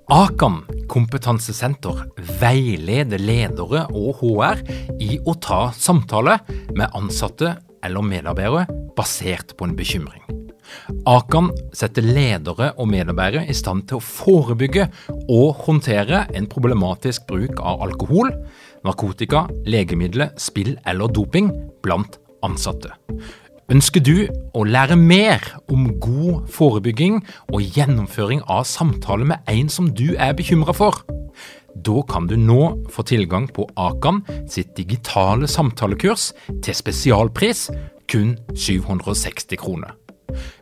Akan kompetansesenter veileder ledere og HR i å ta samtale med ansatte eller medarbeidere basert på en bekymring. Akan setter ledere og medarbeidere i stand til å forebygge og håndtere en problematisk bruk av alkohol, narkotika, legemidler, spill eller doping blant ansatte. Ønsker du å lære mer om god forebygging og gjennomføring av samtaler med en som du er bekymret for? Da kan du nå få tilgang på Akan sitt digitale samtalekurs til spesialpris, kun 760 kroner.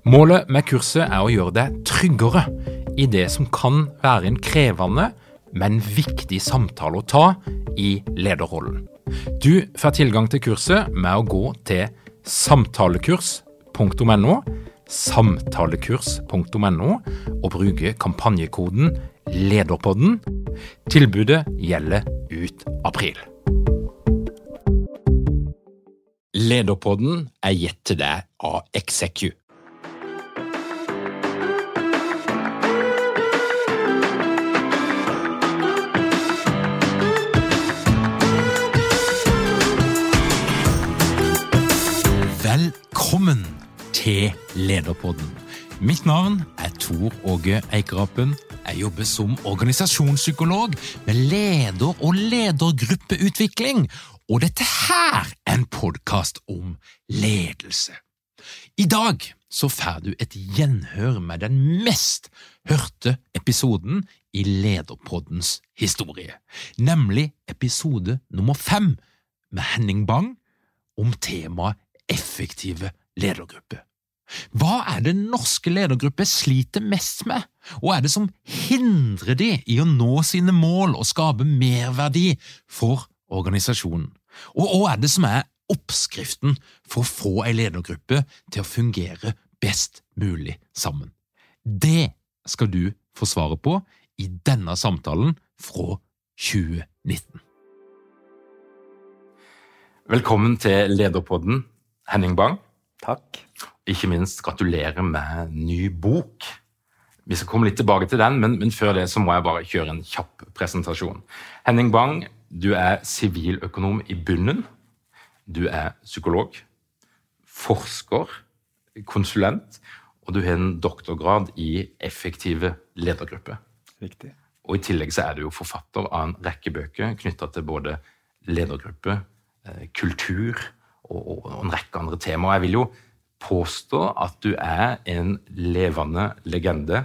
Målet med kurset er å gjøre deg tryggere i det som kan være en krevende, men viktig samtale å ta i lederrollen. Du får tilgang til kurset med å gå til samtalekurs.no og bruke kampanjekoden LEDERPODDEN. Tilbudet gjelder ut april. Lederpodden er gitt til deg av Execu. Velkommen til Lederpodden. Mitt navn er Tor Åge Eikerapen. Jeg jobber som organisasjonspsykolog med leder- og ledergruppeutvikling, og dette her er en podcast om ledelse. I dag så får du et gjenhør med den mest hørte episoden i Lederpoddens historie, nemlig episode nummer 5 med Henning Bang om temaet effektive ledergrupper. Hva er det norske ledergrupper sliter mest med, og er det som hindrer de i å nå sine mål og skape merverdi for organisasjonen? Og hva er det som er oppskriften for å få en ledergruppe til å fungere best mulig sammen? Det skal du få svaret på i denne samtalen fra 2019. Velkommen til Lederpodden, Henning Bang. Takk. Ikke minst gratulerer med ny bok. Vi skal komme litt tilbake til den, men før det så må jeg bare kjøre en kjapp presentasjon. Henning Bang, du er siviløkonom i bunnen. Du er psykolog, forsker, konsulent, og du har en doktorgrad i effektive ledergrupper. Riktig. Og i tillegg så er du jo forfatter av en rekke bøker knyttet til både ledergrupper, kultur og en rekke andre temaer. Jeg vil jo påstå at du er en levende legende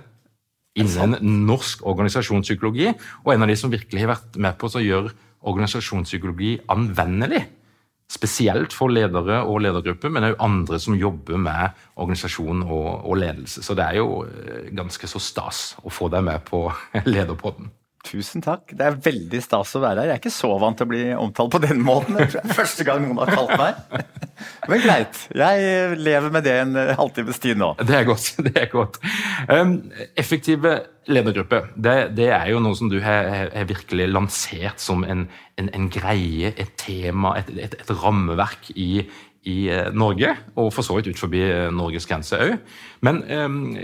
innen norsk organisasjonspsykologi, og en av de som virkelig har vært med på å gjøre organisasjonspsykologi anvendelig, spesielt for ledere og ledergrupper, men også andre som jobber med organisasjon og ledelse. Så det er jo ganske så stas å få deg med på Lederpodden. Tusen takk. Det er veldig stas å være her. Jeg er ikke så vant til å bli omtalt på den måten. Det er første gang noen har kalt meg. Men greit. Jeg lever med det en halvtimes tid nå. Det er godt. Effektive ledergrupper, det er jo noe som du har virkelig lansert som en greie, et tema, et rammeverk i Norge, og for så vidt ut forbi Norges grense også. Men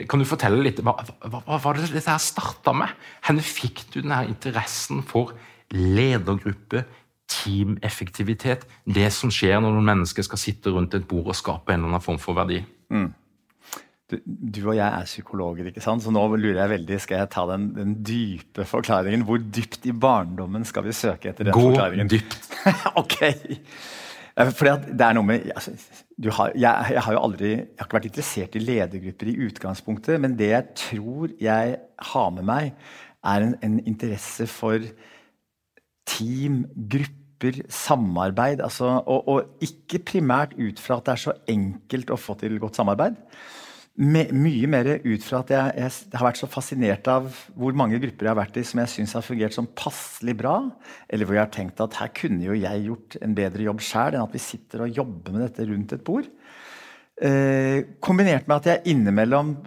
kan du fortelle litt, hva var det dette her startet med? Hvor fikk du denne interessen for ledergruppe, teameffektivitet, det som skjer når noen mennesker skal sitte rundt et bord og skape en eller annen form for verdi? Du og jeg er psykologer, ikke sant? Så nå lurer jeg veldig, skal jeg ta den dype forklaringen? Hvor dypt i barndommen skal vi søke etter den forklaringen? Gå dypt. Ok. Fordi at det er noe med, altså, jeg har jo aldri, jeg har ikke vært interessert i ledergrupper i utgangspunktet, men det jeg tror jeg har med meg er en interesse for team, grupper, samarbeid, altså, og ikke primært ut fra at det er så enkelt å få til godt samarbeid, mye mer ut fra at jeg har vært så fascinert av hvor mange grupper jeg har vært i som jeg synes har fungert som passelig bra, eller hvor jeg har tenkt at her kunne jo jeg gjort en bedre jobb selv enn at vi sitter og jobber med dette rundt et bord. Kombinert med at jeg innimellom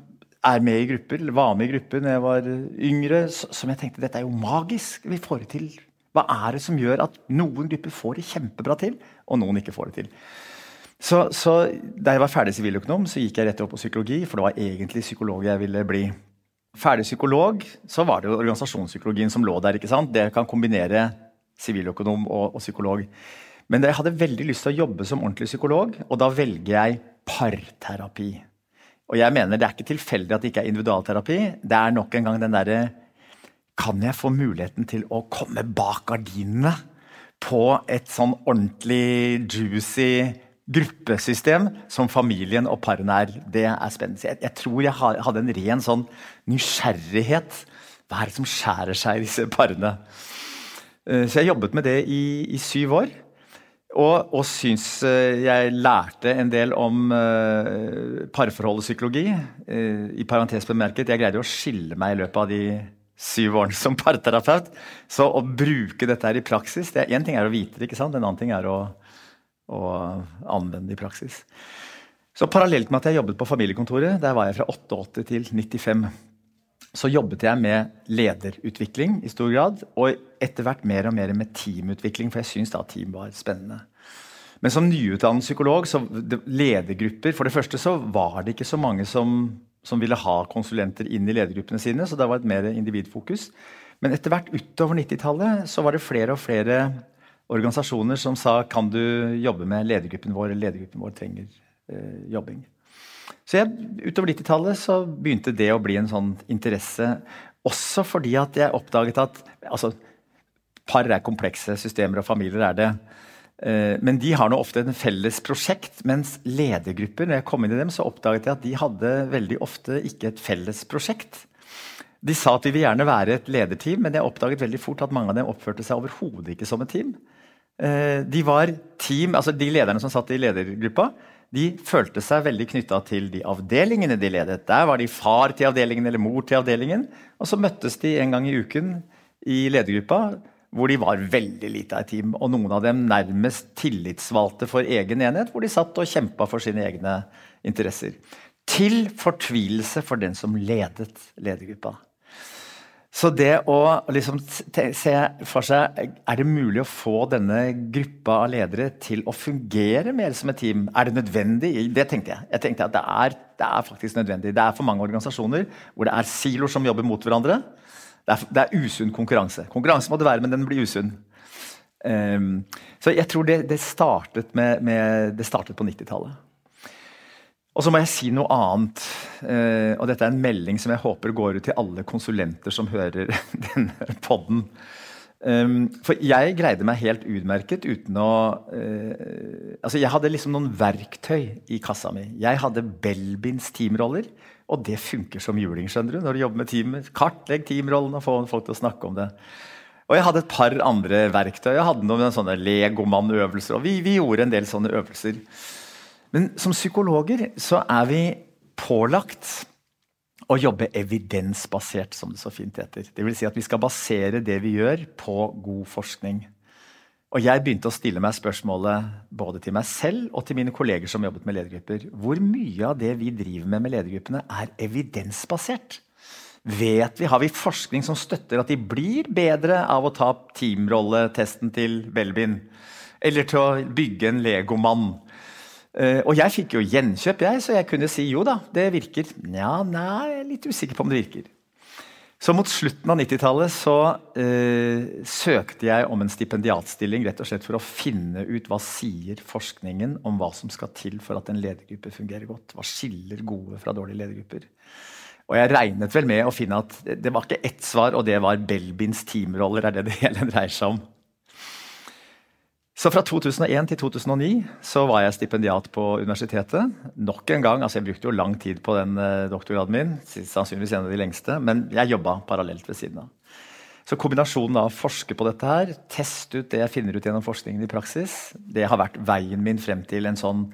er med i grupper, eller var med i grupper når jeg var yngre, som jeg tenkte, dette er jo magisk, vi får det til. Hva er det som gjør at noen grupper får det kjempebra til, og noen ikke får det til? Så da jeg var ferdig siviløkonom, så gikk jeg rett opp på psykologi, for det var egentlig psykolog jeg ville bli. ferdig psykolog, så var det jo organisasjonspsykologien som lå der, ikke sant? Det kan kombinere siviløkonom og psykolog. Men jeg hadde veldig lyst til å jobbe som ordentlig psykolog, og da velger jeg parterapi. Og jeg mener det ikke tilfeldig at det ikke individualterapi, det nok en gang den der, kan jeg få muligheten til å komme bak gardinene på et sånn ordentlig juicy gruppesystem som familien og parene det spennende. Jeg tror jeg hadde en ren sånn nysgjerrighet. Hva det som skjærer seg i disse parene? Så jeg jobbet med det i 7 år, og synes jeg lærte en del om parforholdspsykologi. I parentes bemerket, jeg greide å skille meg i løpet av de 7 årene som parterapeut, så å bruke dette her i praksis, en ting å vite det, ikke sant? En annen ting å anvende i praksis. Så parallelt med at jeg jobbet på familiekontoret, der var jeg fra 88 til 95, så jobbet jeg med lederutvikling i stor grad, og etter hvert mer og mer med teamutvikling, for jeg synes da team var spennende. Men som nyutdannet psykolog, så ledergrupper, for det første så var det ikke så mange som ville ha konsulenter inn i ledergruppene sine, så det var et mer individfokus. Men etter hvert utover 90-tallet så var det flere og flere organisasjoner som sa, kan du jobbe med ledergruppen vår, eller ledergruppen vår trenger jobbing. Så utover 90-tallet så begynte det å bli en sånn interesse, også fordi at jeg oppdaget at, altså, par komplekse systemer og familier det, men de har nå ofte en felles prosjekt, mens ledergrupper, når jeg kom inn i dem, så oppdaget jeg at de hadde veldig ofte ikke et felles prosjekt. De sa at vi vil gjerne være et lederteam, men jeg oppdaget veldig fort at mange av dem oppførte seg overhodet ikke som et team. De var team, altså de lederne som satt i ledergruppa, de følte seg veldig knyttet til de avdelingene de ledet. Der var de far til avdelingen eller mor til avdelingen, og så møttes de en gang i uken i ledergruppa, hvor de var veldig lite av et team, og noen av dem nærmest tillitsvalgte for egen enhet, hvor de satt og kjempet for sine egne interesser. Til fortvilelse for den som ledet ledergruppa. Så det å liksom se for seg, det mulig å få denne gruppa av ledere til å fungere mer som et team? Det nødvendig? Det tenkte jeg. Jeg tenkte at det faktisk nødvendig. Det for mange organisasjoner hvor det siloer som jobber mot hverandre. Det usunn konkurranse. Konkurranse må det være, men den blir usunn. Så jeg tror det startet på 90-tallet. Og så må jeg si noe annet, og dette en melding som jeg håper går ut til alle konsulenter som hører denne podden. For jeg greide meg helt utmerket uten å... altså jeg hadde liksom noen verktøy i kassa mi. Jeg hadde Belbins teamroller, og det funker som juling, skjønner du, når du jobber med teamet. Kartlegg teamrollen og få folk til å snakke om det. Og jeg hadde et par andre verktøy. Jeg hadde noen sånne legomann-øvelser, og vi gjorde en del sånne øvelser. Men som psykologer så vi pålagt å jobbe evidensbasert, som det så fint heter. Det vil si at vi skal basere det vi gjør på god forskning. Og jeg begynte å stille meg spørsmålet både til meg selv og til mine kolleger som jobbet med ledergrupper. Hvor mye av det vi driver med ledergruppene evidensbasert? Har vi forskning som støtter at de blir bedre av å ta teamrolletesten til Belbin? Eller til å bygge en legomann? Og jeg fikk jo gjenkjøp, så jeg kunne si jo da, det virker. Ja, nei, jeg litt usikker på om det virker. Så mot slutten av 90-tallet så søkte jeg om en stipendiatstilling, rett og slett for å finne ut hva sier forskningen om hva som skal til for at en ledergruppe fungerer godt. Hva skiller gode fra dårlige ledergrupper? Og jeg regnet vel med å finne at det var ikke ett svar, og det var Belbins teamroller, det hele dreier seg om. Så fra 2001 til 2009 så var jeg stipendiat på universitetet. Nok en gang, altså jeg brukte jo lang tid på den doktorgraden min, sannsynligvis en av de lengste, men jeg jobbet parallelt ved siden av. Så kombinasjonen av å forske på dette her, teste ut det jeg finner ut gjennom forskningen i praksis, det har vært veien min frem til en sånn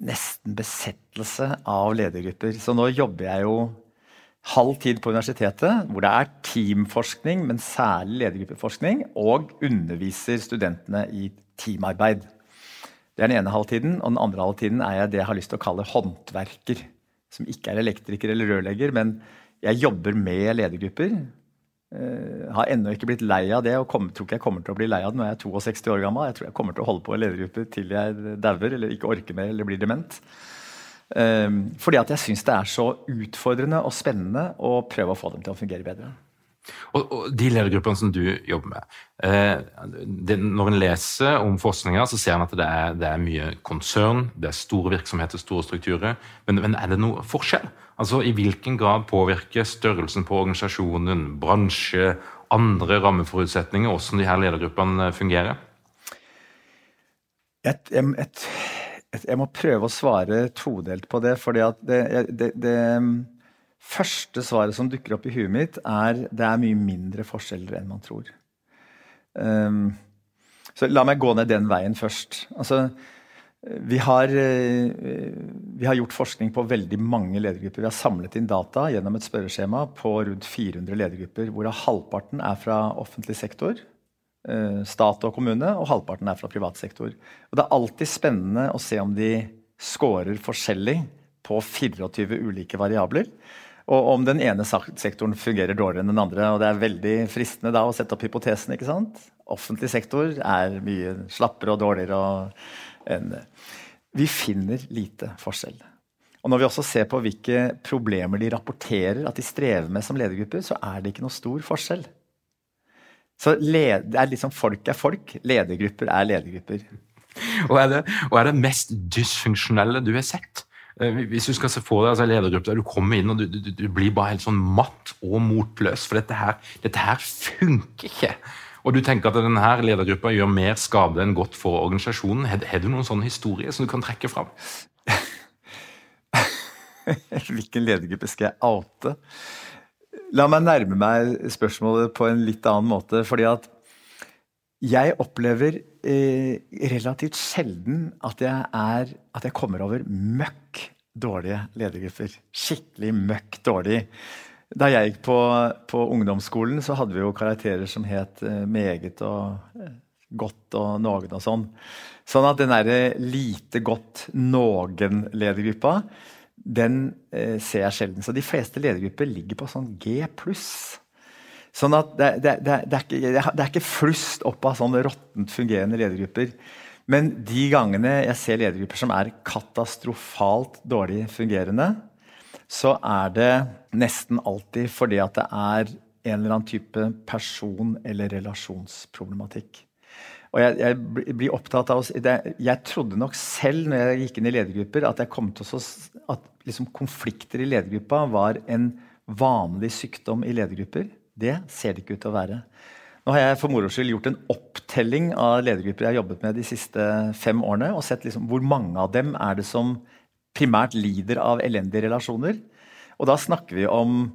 nesten besettelse av ledergrupper. Så nå jobber jeg jo halv tid på universitetet, hvor det teamforskning, men særlig ledergruppeforskning, og underviser studentene i teamarbeid. Det den ene halvtiden, og den andre halvtiden jeg det jeg har lyst til å kalle håndverker, som ikke elektriker eller rørlegger, men jeg jobber med ledergrupper, har ennå ikke blitt lei av det, og tror ikke jeg kommer til å bli lei av det når jeg 62 år gammel. Jeg tror jeg kommer til å holde på i ledergrupper til jeg dauer, eller ikke orker mer, eller blir dement. Fordi at jeg synes det så utfordrende og spennende å prøve å få dem til å fungere bedre. Og de ledergruppene som du jobber med, når en leser om forskninga, så ser en at det mye konsern, det store virksomheter, store strukturer, men det noe forskjell? Altså, i hvilken grad påvirker størrelsen på organisasjonen, bransje, andre rammeforutsetninger, hvordan de her ledergruppene fungerer? Jeg må prøve å svare todelt på det, fordi at det første svaret som dukker opp i huet mitt det mye mindre forskjeller enn man tror. Så la meg gå ned den veien først. Altså, vi har gjort forskning på veldig mange ledergrupper. Vi har samlet inn data gjennom et spørreskjema på rundt 400 ledergrupper, hvorav halvparten fra offentlig sektor, stat og kommune, og halvparten fra privat sektor. Og det alltid spennende å se om de scorer forskjellig på 24 ulike variabler, og om den ene sektoren fungerer dårligere enn den andre, og det veldig fristende da å sette opp hypotesen, ikke sant? Offentlig sektor mye slappere og dårligere enn vi finner lite forskjell. Og når vi også ser på hvilke problemer de rapporterer at de strever med som ledergrupper, så det ikke noe stor forskjell. Så det liksom folk folk, ledergrupper ledergrupper. Og det mest dysfunksjonelle du har sett? Hvis du skal se for deg ledergrupper der du kommer inn og du blir bare helt sånn matt og motløs, for dette her funker ikke. Og du tenker at denne ledergruppa gjør mer skade enn godt for organisasjonen. Har du noen sånne historier som du kan trekke fram? Hvilken ledergruppe skal jeg oute? La meg nærme meg spørsmålet på en litt annen måte, fordi at jeg opplever relativt sjelden at jeg kommer over møkk dårlige ledergrupper. Skikkelig møkk dårlig. Da jeg gikk på ungdomsskolen, så hadde vi jo karakterer som het meget og godt og noen og sånn. Sånn at den lite godt noen-ledergruppa, den ser jeg sjelden. Så de fleste ledergrupper ligger på sånn G+. Sånn at det ikke flust opp av sånne råttent fungerende ledergrupper. Men de gangene jeg ser ledergrupper som katastrofalt dårlig fungerende, så det nesten alltid fordi at det en eller annen type person- eller relasjonsproblematikk. Og jeg blir opptatt av jeg trodde nok selv når jeg gikk inn i ledergrupper at jeg kom til at liksom konflikter i ledergruppa var en vanlig sykdom i ledergrupper. Det ser det ikke ut til å være. Nå har jeg for moro skyld gjort en opptelling av ledergrupper jeg har jobbet med de siste 5 årene, og sett liksom hvor mange av dem det som primært lider av elendige relasjoner. Og da snakker vi om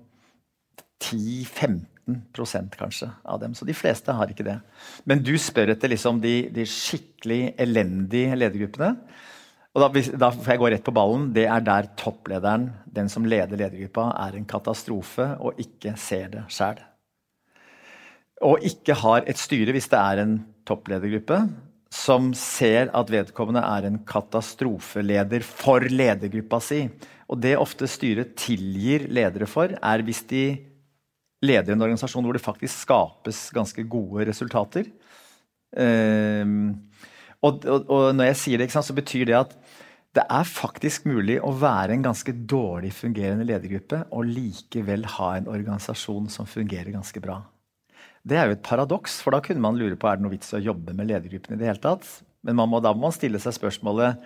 10-15% kanskje av dem, så de fleste har ikke det. Men du spør etter liksom de skikkelig elendige ledergruppene, og da får jeg gå rett på ballen. Det der topplederen, den som leder ledergruppa, en katastrofe og ikke ser det selv. Og ikke har et styre hvis det en toppledergruppe som ser at vedkommende en katastrofeleder for ledergruppa si. Og det ofte styret tilgir ledere for hvis de leder en organisasjon hvor det faktisk skapes ganske gode resultater. Og når jeg sier det, ikke sant, så betyr det at det faktisk mulig å være en ganske dårlig fungerende ledergruppe og likevel ha en organisasjon som fungerer ganske bra. Det jo et paradoks, for da kunne man lure på det noe vits å jobbe med ledergruppen i det hele tatt. Men da må man stille seg spørsmålet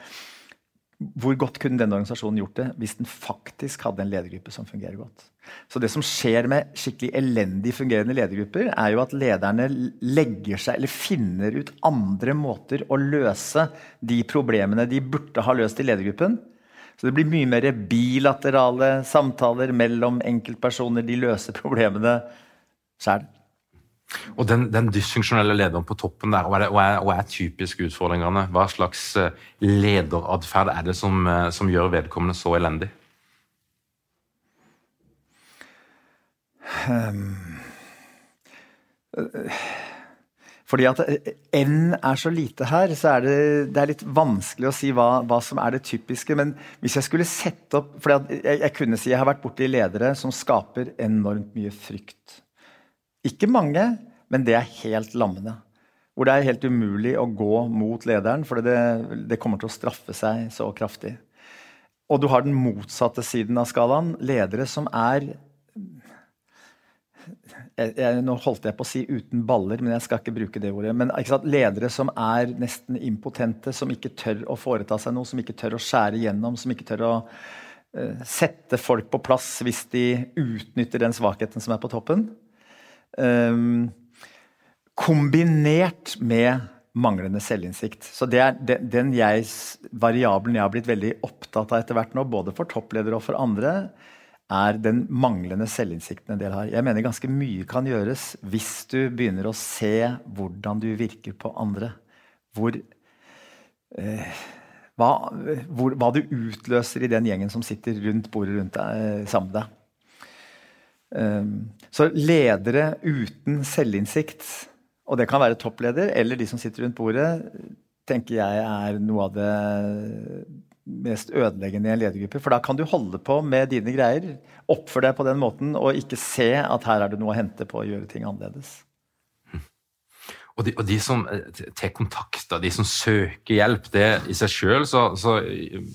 hvor godt kunne denne organisasjonen gjort det hvis den faktisk hadde en ledergruppe som fungerer godt. Så det som skjer med skikkelig elendig fungerende ledergrupper jo at lederne legger seg eller finner ut andre måter å løse de problemene de burde ha løst i ledergruppen. Så det blir mye mer bilaterale samtaler mellom enkeltpersoner, de løser problemene selv. Og den dysfunksjonelle lederen på toppen der, hva typisk utfordringene? Hva slags lederadferd det som gjør vedkommende så elendig? Fordi at N så lite her, så det litt vanskelig å si hva som det typiske, men hvis jeg skulle sette opp, fordi at jeg kunne si jeg har vært borte i ledere som skaper enormt mye frykt. Ikke mange, men det helt lammende. Hvor det helt umulig å gå mot lederen, for det kommer til å straffe seg så kraftig. Og du har den motsatte siden av skalaen, ledere som nå holdt jeg på å si uten baller, men jeg skal ikke bruke det ordet, men ikke sant, ledere som nesten impotente, som ikke tør å foreta seg noe, som ikke tør å skjære gjennom, som ikke tør å sette folk på plass hvis de utnytter den svakheten som på toppen. Kombinert med manglende selvinnsikt. Så det den variabelen jeg har blitt veldig opptatt av etter hvert nå, både for toppledere og for andre, den manglende selvinnsikten en del har. Jeg mener ganske mye kan gjøres hvis du begynner å se hvordan du virker på andre. Hva du utløser i den gjengen som sitter rundt bordet rundt deg, sammen med deg. Så ledere uten selvinnsikt, og det kan være toppleder, eller de som sitter rundt bordet, tenker jeg noe av det mest ødeleggende i en ledergruppe, for da kan du holde på med dine greier, oppføre deg på den måten, og ikke se at her det noe å hente på å gjøre ting annerledes. Og de som tar kontakt, de som søker hjelp, det i seg selv så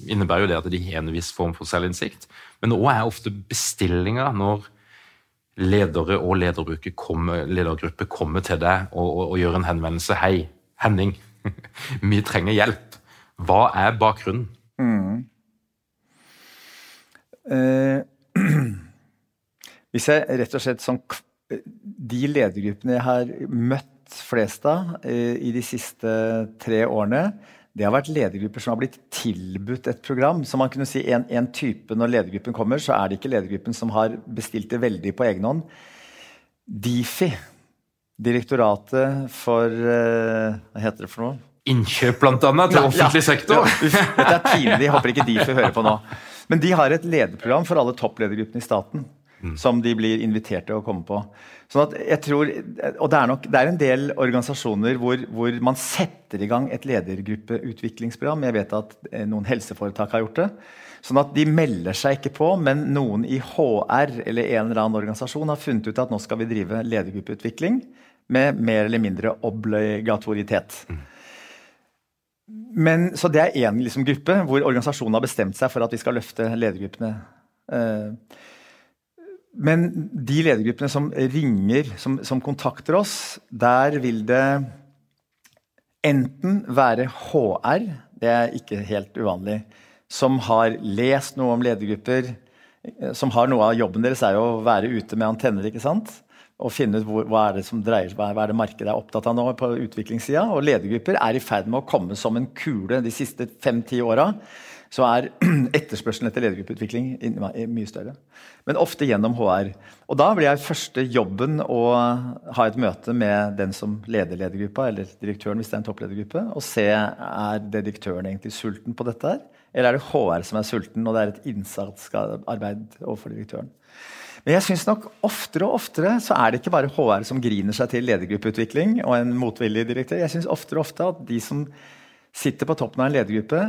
innebærer jo det at de har en viss form for selvinnsikt, men også ofte bestillinger når ledere og ledergrupper kommer til deg og gjør en henvendelse. Hei, Henning, vi trenger hjelp. Hva bakgrunnen? Hvis jeg rett og slett de ledergruppene jeg har møtt flest av i de siste 3 årene, det har vært ledergrupper som har blitt tilbudt et program. Så man kunne si en type når ledergruppen kommer, så det ikke ledergruppen som har bestilt det veldig på egen hånd. DIFI, Direktoratet for, hva heter det for noe? Innkjøp blant annet til offentlig sektor. Dette pinlig, jeg håper ikke DIFI hører på nå. Men de har et lederprogram for alle toppledergruppene i staten, som de blir invitert til å komme på. Sånn at jeg tror, og det en del organisasjoner hvor man setter i gang et ledergruppeutviklingsprogram. Jeg vet at noen helseforetak har gjort det. Sånn at de melder seg ikke på, men noen i HR eller en eller annen organisasjon har funnet ut at nå skal vi drive ledergruppeutvikling med mer eller mindre obligatoritet. Men, så det en liksom gruppe hvor organisasjonen har bestemt seg for at vi skal løfte ledergruppene. Men de ledergruppene som ringer, som kontakter oss, der vil det enten være HR, det ikke helt uvanlig, som har lest noe om ledergrupper, som har noe av jobben deres jo å være ute med antenner, ikke sant? Og finne ut hva det som dreier seg, hva det markedet opptatt av nå på utviklingssiden. Og ledergrupper i ferd med å komme som en kule de siste 5-10 årene. Så etterspørselen etter ledergruppeutvikling mye større. Men ofte gjennom HR. Og da blir første jobben å ha et møte med den som leder ledergruppa, eller direktøren hvis det en toppledergruppe, og se det direktøren egentlig sulten på dette her, eller det HR som sulten, og det et innsatsarbeid overfor direktøren. Men jeg synes nok oftere og oftere så det ikke bare HR som griner seg til ledergruppeutvikling og en motvillig direktør. Jeg synes oftere og ofte at de som sitter på toppen av en ledergruppe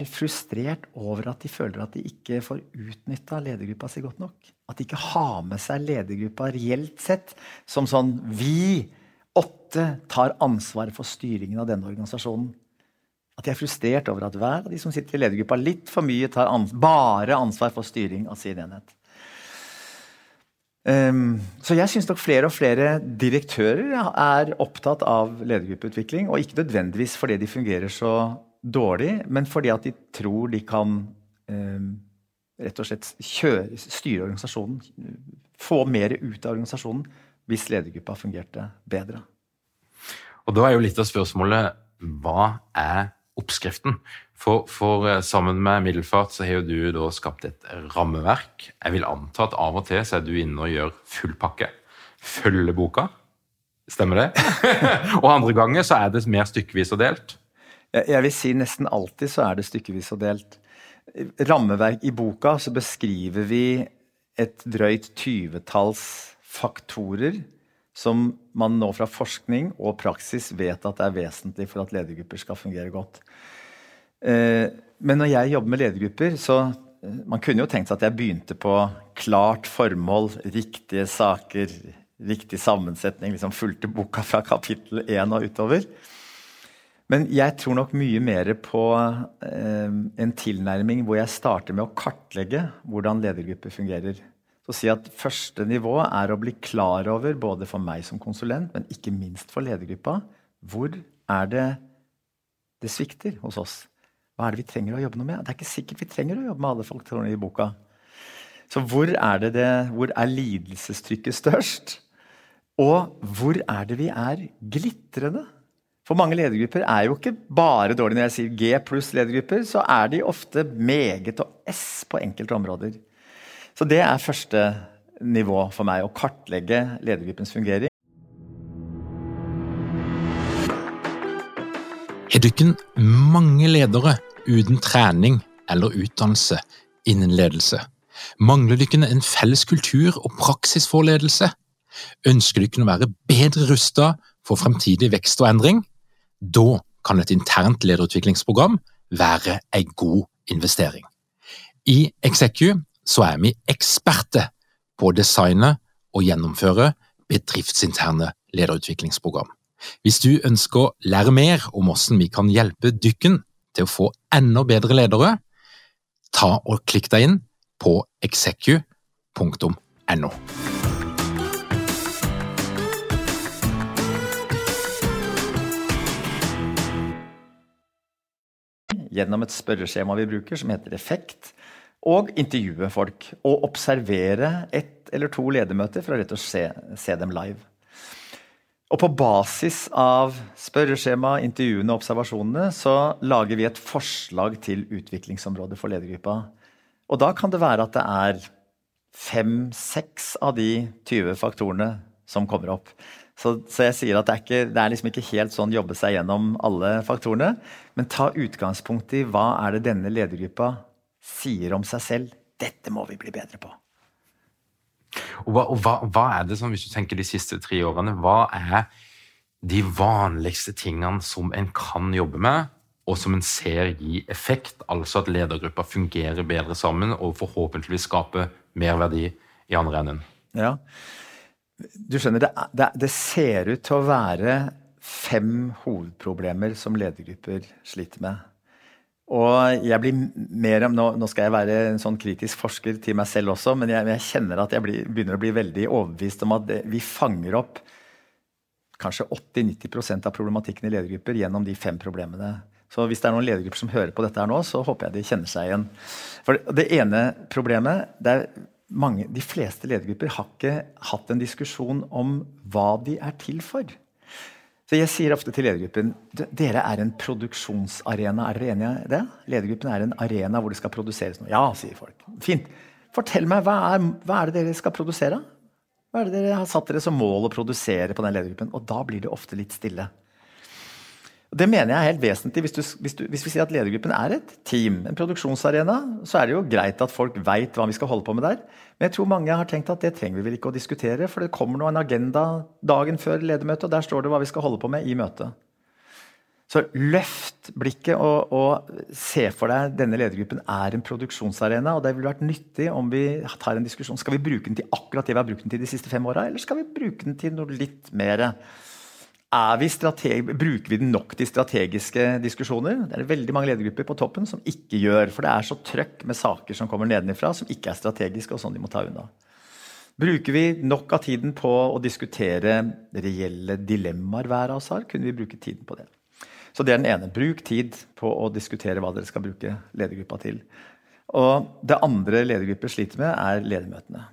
frustrert over at de føler at de ikke får utnyttet ledergruppa si godt nok. At de ikke har med seg ledergruppa reelt sett som sånn, vi 8 tar ansvar for styringen av denne organisasjonen. At de frustrert over at hver av de som sitter i ledergruppa litt for mye tar bare ansvar for styring av sin enhet. Så jeg synes nok flere og flere direktører opptatt av ledergruppeutvikling, og ikke nødvendigvis fordi de fungerer så dårlig, men fordi at de tror de kan rett og slett styre organisasjonen, få mer ut av organisasjonen hvis ledergruppa fungerte bedre. Og da jo litt av spørsmålet, hva oppskriften? For sammen med Middelfart så har jo du da skapt et rammeverk. Jeg vil anta at av og til så du inne og gjør full pakke. Følger boka. Stemmer det? Og andre ganger så det mer stykkevis og delt. Jeg vil si nesten alltid så det stykkevis og delt. Rammeverk i boka så beskriver vi et drøyt 20-talls faktorer som man nå fra forskning og praksis vet at vesentlig for at ledergrupper skal fungere godt. Men når jeg jobber med ledergrupper, så man kunne jo tenkt seg at jeg begynte på klart formål, riktige saker, riktig sammensetning, liksom fulgte boka fra kapittel 1 og utover. Men jeg tror nok mye mer på en tilnærming hvor jeg starter med å kartlegge hvordan ledergrupper fungerer. Så si at første nivå å bli klar over, både for meg som konsulent, men ikke minst for ledergruppa, hvor det svikter hos oss? Hva det vi trenger å jobbe noe med? Det ikke sikkert vi trenger å jobbe med alle faktorene i boka. Så hvor hvor lidelsestrykket størst? Og hvor det vi glitrende? For mange ledergrupper jo ikke bare dårlig. Når jeg sier G pluss ledergrupper, så de ofte meget og S på enkelte områder. Så det første nivå for meg, å kartlegge ledergruppens fungering. Har dere mange ledere uten trening eller utdannelse innen ledelse? Mangler dere en felles kultur og praksis for ledelse? Ønsker dere å være bedre rustet for fremtidig vekst og endring? Da kan et internt lederutviklingsprogram være en god investering. I Execu så vi eksperter på å designe og gjennomføre bedriftsinterne lederutviklingsprogram. Hvis du ønsker å lære mer om hvordan vi kan hjelpe dykken til å få enda bedre ledere, ta og klikk deg inn på execu.no. Gjennom et spørreskjema vi bruker som heter Effekt, og intervjue folk, og observere 1 eller 2 ledermøter for å rett og slett se dem live. Og på basis av spørreskjema, intervjuene og observasjonene, så lager vi et forslag til utviklingsområdet for ledergruppa. Og da kan det være at det 5-6 av de 20 faktorene som kommer opp. Så jeg sier at det liksom ikke helt sånn jobbe seg gjennom alle faktorene, men ta utgangspunkt i hva det denne ledergruppa sier om seg selv. Dette må vi bli bedre på. Og hva det som, hvis du tenker de siste 3 årene, hva de vanligste tingene som en kan jobbe med, og som en ser gi effekt, altså at ledergruppa fungerer bedre sammen, og forhåpentligvis skaper mer verdi i andre enden? Ja, du skjønner, det ser ut til å være 5 hovedproblemer som ledergrupper sliter med. Og jeg blir mer nå skal jeg være en sånn kritisk forsker til meg selv også, men jeg kjenner at jeg begynner å bli veldig overbevist om at vi fanger opp kanskje 80-90% av problematikken i ledergrupper gjennom de 5 problemene. Så hvis det noen ledergrupper som hører på dette her nå, så håper jeg de kjenner seg igjen. For det ene problemet, de fleste ledergrupper har ikke hatt en diskusjon om hva de til for. Så jeg sier ofte til ledergruppen, dere en produksjonsarena, dere enige i det? Ledergruppen en arena hvor det skal produseres noe. Ja, sier folk. Fint. Fortell meg, hva det dere skal produsere? Hva det dere har satt dere som mål å produsere på den ledergruppen? Og da blir det ofte litt stille. Og det mener jeg helt vesentlig. Hvis vi sier at ledergruppen et team, en produksjonsarena, så det jo greit at folk vet hva vi skal holde på med der. Men jeg tror mange har tenkt at det trenger vi vel ikke å diskutere, for det kommer en agenda dagen før ledermøtet, og der står det hva vi skal holde på med i møtet. Så løft blikket og se for deg denne ledergruppen en produksjonsarena, og det ville vært nyttig om vi tar en diskusjon. Skal vi bruke den til akkurat det vi har brukt den til de siste 5 årene, eller skal vi bruke den til noe litt mer? Bruker vi den nok til strategiske diskusjoner? Det veldig mange ledergrupper på toppen som ikke gjør, for det så trøkk med saker som kommer nedenifra, som ikke strategiske, og sånn de må ta unna. Bruker vi nok av tiden på å diskutere reelle dilemmaer hver av oss har, kunne vi bruke tiden på det. Så det den ene. Bruk tid på å diskutere hva dere skal bruke ledergruppa til. Og det andre ledergrupper sliter med ledermøtene.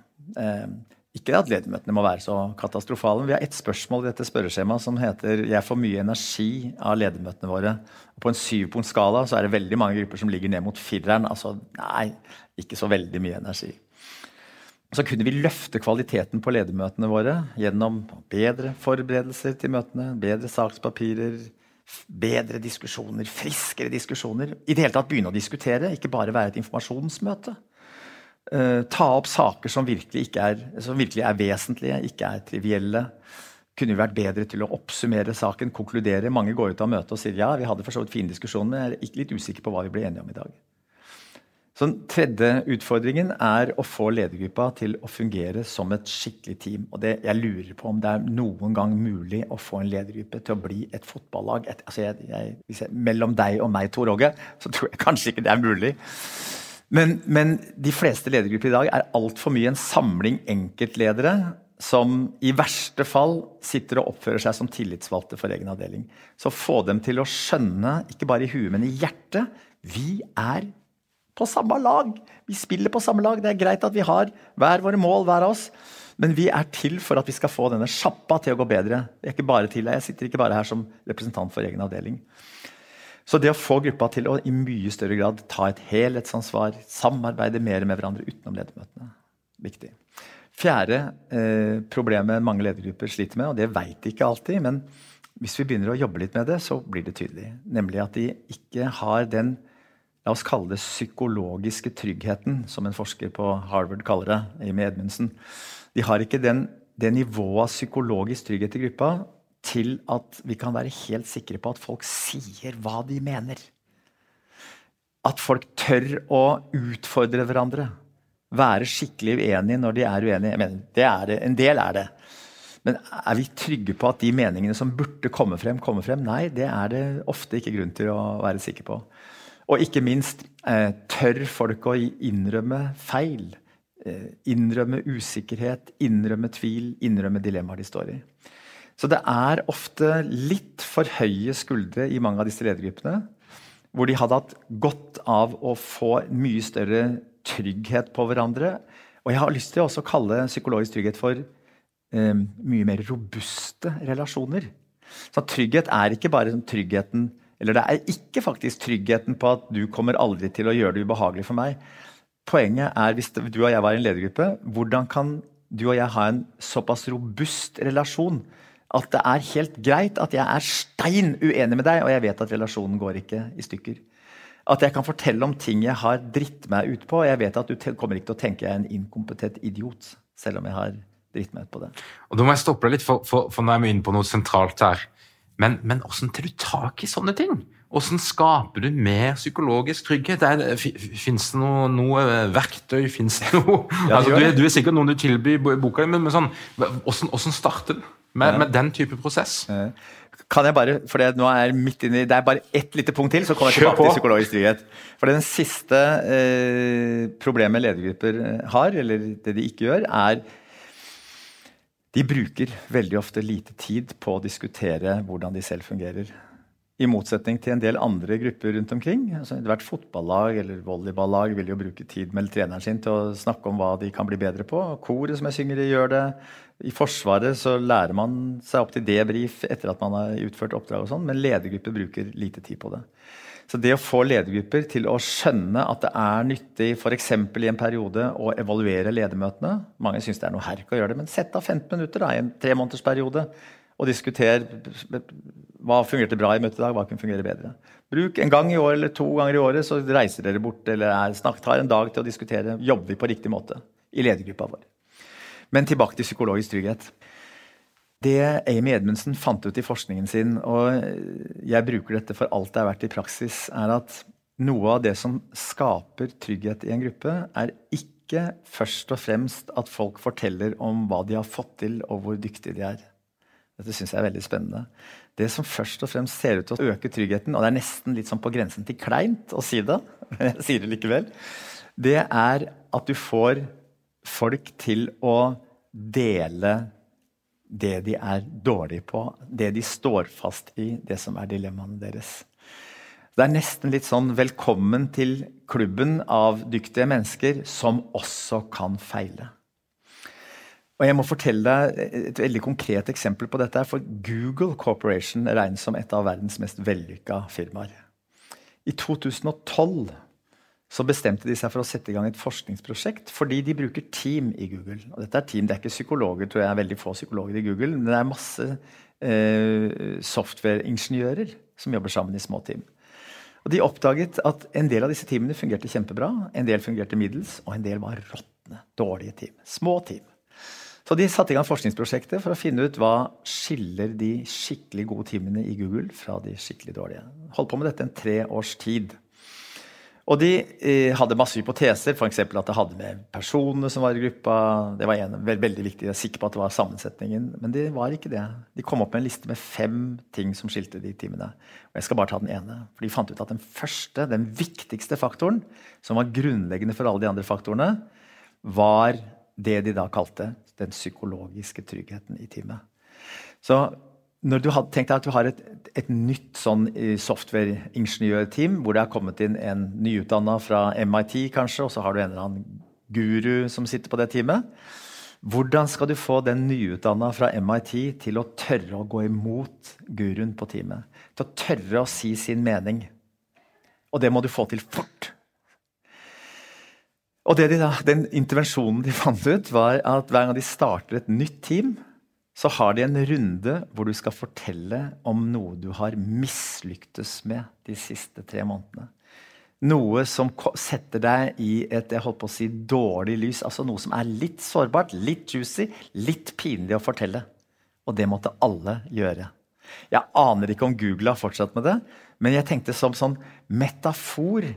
Ikke at ledermøtene må være så katastrofale. Vi har et spørsmål i dette spørreskjemaet som heter «Jeg får mye energi av ledermøtene våre». Og på en 7-punktskala så det veldig mange grupper som ligger ned mot 4'eren. Altså, nei, ikke så veldig mye energi. Så kunne vi løfte kvaliteten på ledermøtene våre gjennom bedre forberedelser til møtene, bedre sakspapirer, bedre diskusjoner, friskere diskusjoner. I det hele tatt begynne å diskutere, ikke bare være et informasjonsmøte. Ta opp saker som virkelig vesentlige, ikke trivielle. Kunne vi vært bedre til å oppsummere saken, konkludere. Mange går ut av møtet og sier, ja, vi hadde for så vidt fin diskusjon, men jeg litt usikker på hva vi ble enige om i dag. Så den tredje utfordringen å få ledergruppa til å fungere som et skikkelig team. Og jeg lurer på om det noen gang mulig å få en ledergruppe til å bli et fotballag. Mellom deg og meg, Tor Åge, så tror jeg kanskje ikke det mulig. Men de fleste ledergrupper i dag alt for mye en samling enkeltledere som i verste fall sitter og oppfører seg som tillitsvalgte for egen avdeling. Så få dem til å skjønne, ikke bare i huet, men i hjertet, vi på samme lag. Vi spiller på samme lag. Det greit at vi har hver våre mål, hver av oss, men vi til for at vi skal få denne sjappa til å gå bedre. Jeg sitter ikke bare her som representant for egen avdeling. Så det å få gruppa til å i mye større grad ta et helhetsansvar, samarbeide mer med hverandre utenom ledermøtene, viktig. Fjerde problemet mange ledergrupper sliter med, og det vet de ikke alltid, men hvis vi begynner å jobbe litt med det, så blir det tydelig. Nemlig at de ikke har den, la oss kalle det psykologiske tryggheten, som en forsker på Harvard kaller det, Amy Edmondson. De har ikke det nivået av psykologisk trygghet i gruppa til at vi kan være helt sikre på at folk sier hva de mener. At folk tør å utfordre hverandre. Være skikkelig uenige når de uenige. Jeg mener, en del det. Men vi trygge på at de meningene som burde komme frem? Nei, det det ofte ikke grunn til å være sikker på. Og ikke minst tør folk å innrømme feil, innrømme usikkerhet, innrømme tvil, innrømme dilemmaer de står i. Så det ofte litt for høye skuldre i mange av disse ledergruppene, hvor de hadde hatt godt av å få mye større trygghet på hverandre. Og jeg har lyst til å også kalle psykologisk trygghet for mye mer robuste relasjoner. Så trygghet ikke bare tryggheten, eller det ikke faktisk tryggheten på at du kommer aldri til å gjøre det ubehagelig for meg. Poenget hvis du og jeg var i en ledergruppe, hvordan kan du og jeg ha en såpass robust relasjon at det helt greit at jeg stein uenig med deg, og jeg vet at relasjonen går ikke i stykker. At jeg kan fortelle om ting jeg har dritt meg ut på, og jeg vet at du kommer ikke til å tenke jeg en inkompetent idiot, selv om jeg har dritt meg ut på det. Og da må jeg stoppe deg litt, for nå vi inne på noe sentralt her. Men hvordan tar du tak i sånne ting? Hvordan skaper du mer psykologisk trygghet? Finnes det noe verktøy? Finnes det noe? Ja, du sikkert noen du tilbyr i boka, men sånn, hvordan starter du med den type prosess? Kan jeg bare, for nå midt inne, det bare ett lite punkt til, så kommer jeg tilbake til psykologisk trygghet. For den siste problemet ledergrupper har, eller det de ikke gjør, de bruker veldig ofte lite tid på å diskutere hvordan de selv fungerer. I motsetning til en del andre grupper rundt omkring. Altså, hvert fotballag eller volleyballag vil jo bruke tid med treneren sin til å snakke om hva de kan bli bedre på. Koret som jeg synger i gjør det. I Forsvaret så lærer man seg opp til debrief etter at man har utført oppdrag og sånn, men ledergrupper bruker lite tid på det. Så det å få ledergrupper til å skjønne at det nyttig, for eksempel i en periode, å evaluere ledermøtene. Mange synes det noe herk å gjøre det, men sett av 15 minutter i en 3 måneders periode, og diskuter hva fungerte bra i møtet i dag, hva kunne fungere bedre. Bruk en gang i år eller 2 ganger i året, så reiser dere bort, eller tar en dag til å diskutere, jobber vi på riktig måte i ledergruppa vår. Men tilbake til psykologisk trygghet. Det Amy Edmondson fant ut i forskningen sin, og jeg bruker dette for alt det har vært i praksis, at noe av det som skaper trygghet i en gruppe ikke først og fremst at folk forteller om hva de har fått til og hvor dyktige de Dette synes jeg veldig spennende. Det som først og fremst ser ut til å øke tryggheten, og det nesten litt sånn på grensen til kleint å si det, men jeg sier det likevel, det at du får folk til å dele det de dårlige på, det de står fast i, det som dilemmaene deres. Det nesten litt sånn velkommen til klubben av dyktige mennesker som også kan feile. Og jeg må fortelle deg et veldig konkret eksempel på dette, for Google Corporation regnes som et av verdens mest vellykka firmaer. I 2012 så bestemte de seg for å sette i gang et forskningsprosjekt, fordi de bruker team i Google. Og dette team, det ikke psykologer, tror jeg veldig få psykologer i Google, men det masse softwareingeniører som jobber sammen i små team. Og de oppdaget at en del av disse teamene fungerte kjempebra, en del fungerte middels, og en del var råttende, dårlige team, små team. Så de satte i gang forskningsprosjektet for å finne ut hva skiller de skikkelig gode teamene i Google fra de skikkelig dårlige. Holdt på med dette en 3 års tid. Og de hadde masse hypoteser, for eksempel at det hadde med personene som var i gruppa. Det var veldig viktig, jeg er sikker på at det var sammensetningen, men det var ikke det. De kom opp med en liste med 5 ting som skilte de teamene. Og jeg skal bare ta den ene, for de fant ut at den viktigste faktoren, som var grunnleggende for alle de andre faktorene, var det de da kalte den psykologiske tryggheten i teamet. Så når du hadde tenkt deg at du har et nytt sånn software-ingeniørteam, hvor det har kommet inn en nyutdannet fra MIT kanskje, og så har du en eller annen guru som sitter på det teamet. Hvordan skal du få den nyutdannet fra MIT til å tørre å gå imot guruen på teamet? Til å tørre å si sin mening. Og det må du få til fort. Og den intervensjonen de fant ut var at hver gang de starter et nytt team, så har de en runde hvor du skal fortelle om noe du har mislyktes med de siste 3 månedene. Noe som setter deg i et, jeg holdt på å si, dårlig lys, altså noe som er litt sårbart, litt juicy, litt pinlig å fortelle. Og det måtte alle gjøre. Jeg aner ikke om Google har fortsatt med det, men jeg tenkte som sånn metafor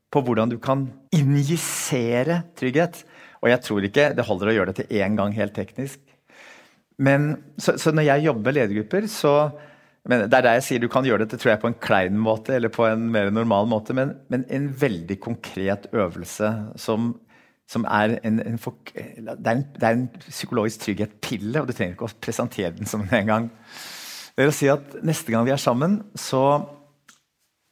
på hvordan du kan injisere trygghet. Og jeg tror ikke det holder å gjøre det til en gang helt teknisk. Men så når jeg jobber med ledergrupper, det er der jeg sier du kan gjøre det, tror jeg, på en klein måte, eller på en mer normal måte, men en veldig konkret øvelse som er det er en psykologisk trygghet-pille, og du trenger ikke å presentere den som en gang. Det er å si at neste gang vi er sammen, så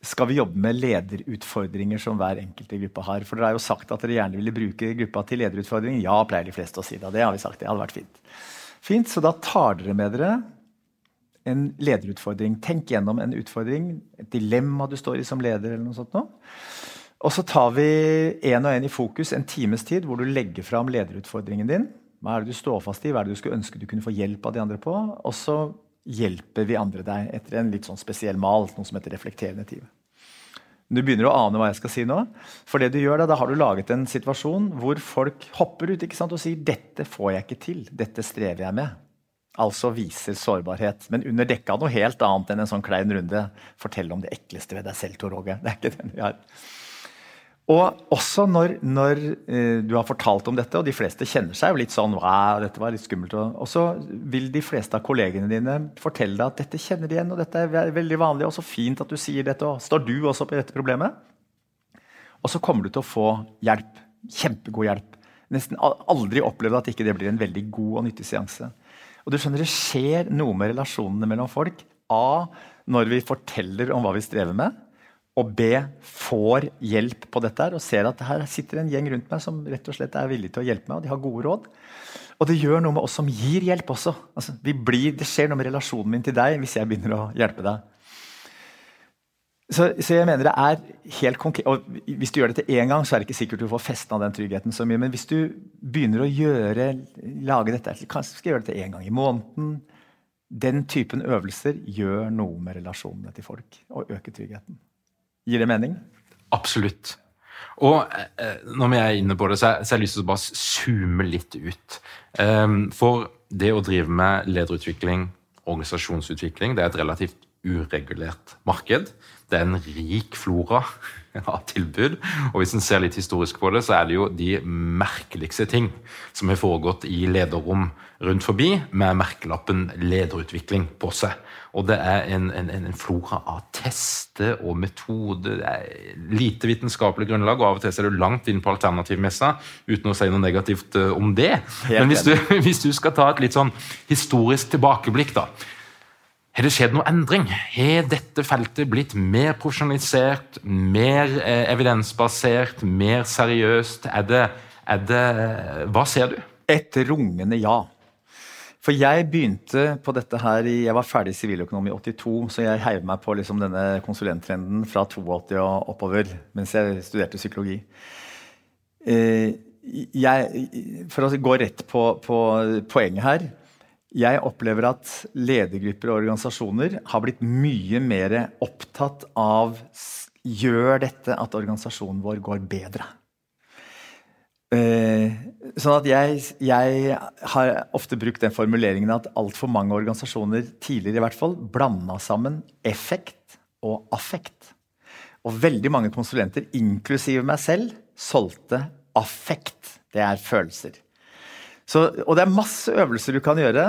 skal vi jobbe med lederutfordringer som hver enkelt i gruppa har. For dere har jo sagt at dere gjerne ville bruke gruppa til lederutfordringer. Ja, pleier de fleste å si det, og det har vi sagt, det hadde vært fint. Fint, så da tar dere med dere en lederutfordring. Tenk gjennom en utfordring, et dilemma du står i som leder eller noe sånt nå. Og så tar vi en og en i fokus en times tid hvor du legger frem lederutfordringen din. Hva er det du står fast i? Hva er det du skulle ønske du kunne få hjelp av de andre på? Og så hjelper vi andre deg etter en litt sånn spesiell mal, noe som heter reflekterende tid. Du begynner å ane hva jeg skal si nå. For det du gjør da har du laget en situasjon hvor folk hopper ut, ikke sant, og sier dette får jeg ikke til, dette strever jeg med. Altså viser sårbarhet, men under dekka noe helt annet enn en sånn klein runde. Fortell om det ekleste ved deg selv, Tor Åge. Det er ikke den vi har. Og også når du har fortalt om dette, og de fleste kjenner seg jo litt sånn, wow, dette var litt skummelt, og så vil de fleste av kollegene dine fortelle deg at dette kjenner de igjen, og dette er veldig vanlig, og så fint at du sier dette, og står du også på dette problemet? Og så kommer du til å få hjelp, kjempegod hjelp. Nesten aldri opplevd at ikke det blir en veldig god og nyttig seanse. Og du skjønner, det skjer noe med relasjonene mellom folk. A, når vi forteller om hva vi strever med, og B, får hjelp på dette her, og ser at her sitter en gjeng rundt meg som rett og slett er villig til å hjelpe meg, og de har gode råd. Og det gjør noe med oss som gir hjelp også. Altså, det skjer noe med relasjonen min til deg hvis jeg begynner å hjelpe deg. Så jeg mener det er helt konkret, og hvis du gjør det til en gang, så er det ikke sikkert du får festen av den tryggheten så mye, men hvis du begynner å lage dette, kanskje skal jeg gjøre det til en gang i måneden, den typen øvelser gjør noe med relasjonene til folk, og øker tryggheten. Gir det mening? Absolutt. Og når vi er inne på det, så har jeg lyst til å bare zoome litt ut. For det å drive med lederutvikling, organisasjonsutvikling, det er et relativt uregulert marked. Det er en rik flora av tilbud, og hvis en ser litt historisk på det, så er det jo de merkeligste ting som har foregått i lederrom rundt forbi, med merkelappen lederutvikling på seg. Og det er en flora av tester og metoder, det er lite vitenskapelig grunnlag, og av og til er du langt inn på alternativmessa, uten å si noe negativt om det. Men hvis du skal ta et litt sånn historisk tilbakeblikk da, har det skjedd noe endring? Har dette feltet blitt mer profesjonalisert, mer evidensbasert, mer seriøst? Hva ser du? Et rungende ja. For jeg begynte på dette her, jeg var ferdig siviløkonom i 82, så jeg heiv meg på liksom denne konsulenttrenden fra 82 og oppover, mens jeg studerte psykologi. For å gå rett på poenget her, jeg opplever at ledergrupper og organisasjoner har blitt mye mer opptatt av gjør dette at organisasjonen vår går bedre. Sånn at jeg har ofte brukt den formuleringen at alt for mange organisasjoner tidligere i hvert fall blandet sammen effekt og affekt. Og veldig mange konsulenter, inklusive meg selv, solgte affekt. Det følelser. Og det masse øvelser du kan gjøre,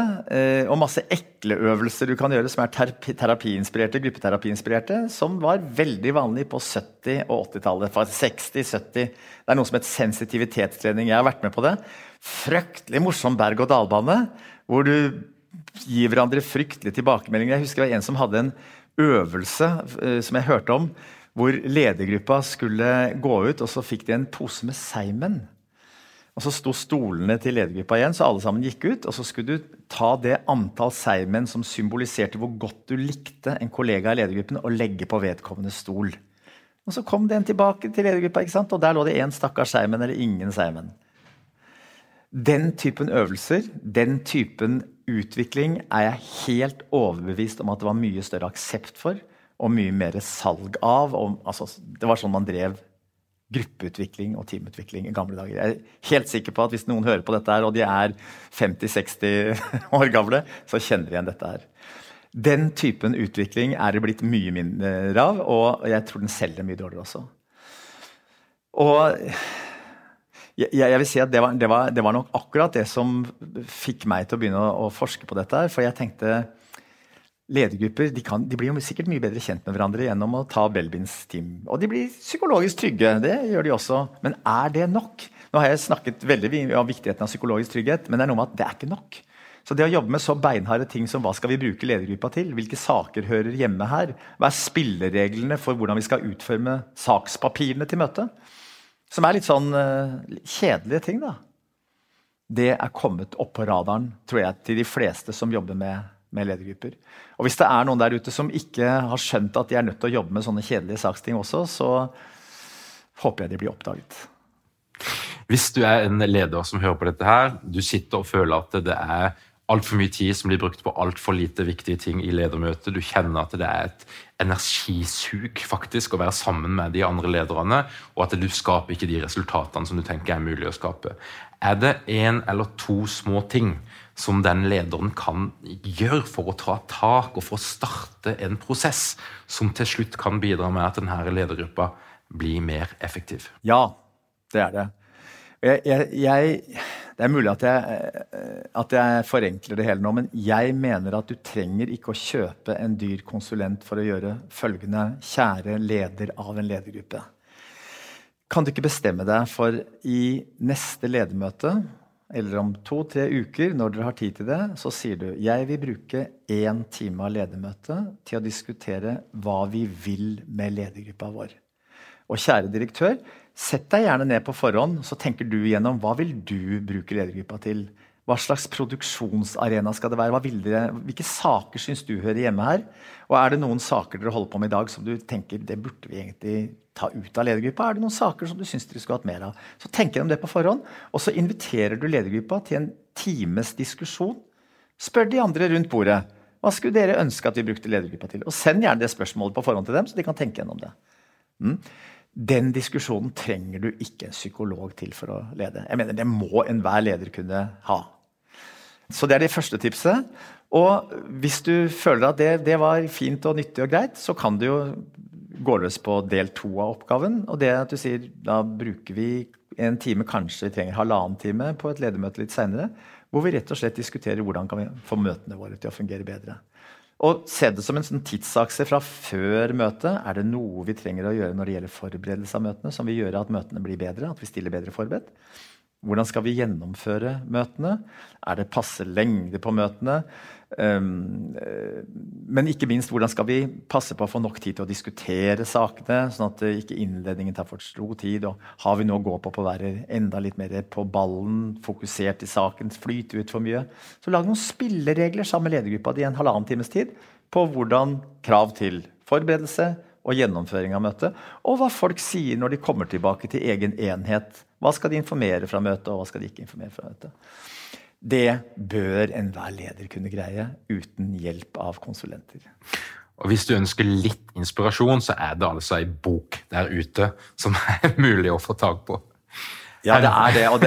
og masse ekle øvelser du kan gjøre, som terapiinspirerte, gruppeterapiinspirerte, som var veldig vanlig på 70- og 80-tallet, fra 60, 70. Det noe som heter sensitivitetstrening. Jeg har vært med på det. Fryktelig morsom berg- og dalbane, hvor du gir hverandre fryktelige tilbakemeldinger. Jeg husker det var en som hadde en øvelse som jeg hørte om, hvor ledergruppa skulle gå ut, og så fikk de en pose med seimen. Og så sto stolene til ledergruppa igjen, så alle sammen gikk ut, og så skulle du ta det antall seimen som symboliserte hvor godt du likte en kollega i ledergruppen, og legge på vedkommende stol. Og så kom den tilbake til ledergruppa, ikke sant? Og der lå det en stakkars seimen, eller ingen seimen. Den typen øvelser, den typen utvikling, jeg helt overbevist om at det var mye større aksept for, og mye mer salg av. Altså, det var sånn man drev gruppeutvikling og teamutvikling i gamle dager. Jeg helt sikker på at hvis noen hører på dette her, og de 50-60 år gamle, så kjenner de igjen dette her. Den typen utvikling det blitt mye mindre av, og jeg tror den selger mye dårligere også. Og jeg vil si at det var nok akkurat det som fikk meg til å begynne å forske på dette her, for jeg tenkte ledergrupper, de blir jo sikkert mye bedre kjent med hverandre gjennom å ta Belbins team. Og de blir psykologisk trygge, det gjør de også. Men det nok? Nå har jeg snakket veldig om viktigheten av psykologisk trygghet, men det noe med at det ikke nok. Så det å jobbe med så beinharde ting som hva skal vi bruke ledergruppa til? Hvilke saker hører hjemme her? Hva spillereglene for hvordan vi skal utforme sakspapirene til møtet? Som litt sånn kjedelige ting da. Det kommet opp på radaren, tror jeg, til de fleste som jobber med ledergrupper. Og hvis det noen der ute som ikke har skjønt at de nødt til å jobbe med sånne kjedelige saksting også, så håper jeg de blir oppdaget. Hvis du en leder som hører på dette her, du sitter og føler at det alt for mye tid som blir brukt på alt for lite viktige ting i ledermøtet, du kjenner at det et energisug faktisk å være sammen med de andre lederne, og at du skaper ikke de resultatene som du tenker mulig å skape. Det en eller to små ting som den lederen kan gjøre for å ta tak og for å starte en prosess som til slutt kan bidra med at denne ledergruppa blir mer effektiv? Ja, det det. Det mulig at jeg forenkler det hele nå, men jeg mener at du trenger ikke å kjøpe en dyr konsulent for å gjøre følgende: kjære leder av en ledergruppe. Kan du ikke bestemme deg for i neste ledermøte, eller om 2-3 uker, når dere har tid til det, så sier du: jeg vil bruke 1 time av ledermøte til å diskutere hva vi vil med ledergruppa vår. Og kjære direktør, sett deg gjerne ned på forhånd, så tenker du igjennom hva vil du bruke ledergruppa til? Hva slags produksjonsarena skal det være? Hvilke saker synes du hører hjemme her? Og det noen saker dere holder på med i dag som du tenker, det burde vi egentlig ta ut av ledergruppa? Det noen saker som du synes dere skulle hatt mer av? Så tenk om det på forhånd, og så inviterer du ledergruppa til en times diskusjon. Spør de andre rundt bordet. Hva skulle dere ønske at vi brukte ledergruppa til? Og send gjerne det spørsmålet på forhånd til dem, så de kan tenke gjennom det. Den diskusjonen trenger du ikke en psykolog til for å lede. Jeg mener, det må enhver leder kunne ha. Så det det første tipset. Og hvis du føler at det var fint og nyttig og greit, så kan du jo gå løs på del 2 av oppgaven. Og det at du sier, da bruker vi 1 time, kanskje vi trenger 1,5 time på et ledermøte litt senere, hvor vi rett og slett diskuterer hvordan kan vi få møtene våre til å fungere bedre. Og se det som en sånn tidsakse fra før møtet. Det noe vi trenger å gjøre når det gjelder forberedelse av møtene, som vil gjøre at møtene blir bedre, at vi stiller bedre forberedt? Hvordan skal vi gjennomføre møtene? Det passe lengde på møtene? Men ikke minst, hvordan skal vi passe på å få nok tid til å diskutere sakene, sånn at ikke innledningen tar for stor tid, og har vi noe å gå på å være enda litt mer på ballen, fokusert i saken, flyte ut for mye? Så lag noen spilleregler sammen med ledergruppa i 1,5 times tid på hvordan krav til forberedelse og gjennomføring av møtet, og hva folk sier når de kommer tilbake til egen enhet. Hva skal de informere fra møtet, og hva skal de ikke informere fra møtet? Det bør enhver leder kunne greie uten hjelp av konsulenter. Og hvis du ønsker litt inspirasjon, så det altså en bok der ute som mulig å få tag på. Ja, det og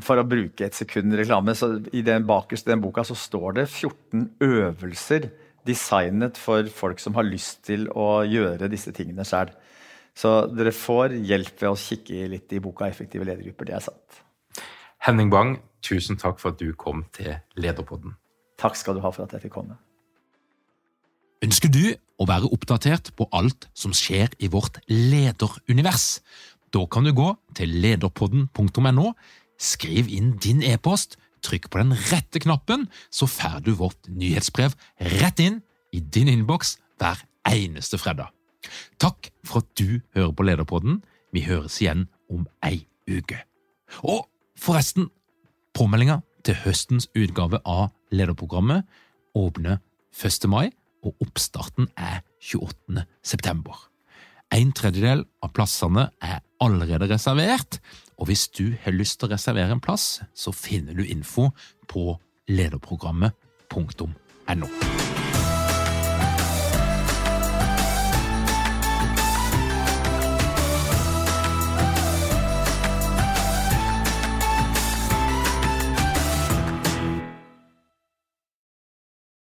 for å bruke et sekund reklame, så i den bakerste den boka så står det 14 øvelser designet for folk som har lyst til å gjøre disse tingene selv. Så dere får hjelp ved å kikke litt i boka Effektive ledergrupper, det sant. Henning Bang, tusen takk for at du kom til Lederpodden. Takk skal du ha for at jeg fikk komme. Ønsker du å være oppdatert på alt som skjer i vårt lederunivers? Da kan du gå til lederpodden.no, skriv inn din e-post, trykk på den rette knappen, så får du vårt nyhetsbrev rett inn i din innboks hver eneste fredag. Takk for at du hører på Lederpodden. Vi høres igjen om ei uke. Og forresten, påmeldinga til høstens utgave av lederprogrammet åpner 1. mai, og oppstarten 28. september. 1/3 av plassene allerede reservert, og hvis du har lyst til å reservere en plass, så finner du info på lederprogrammet.no.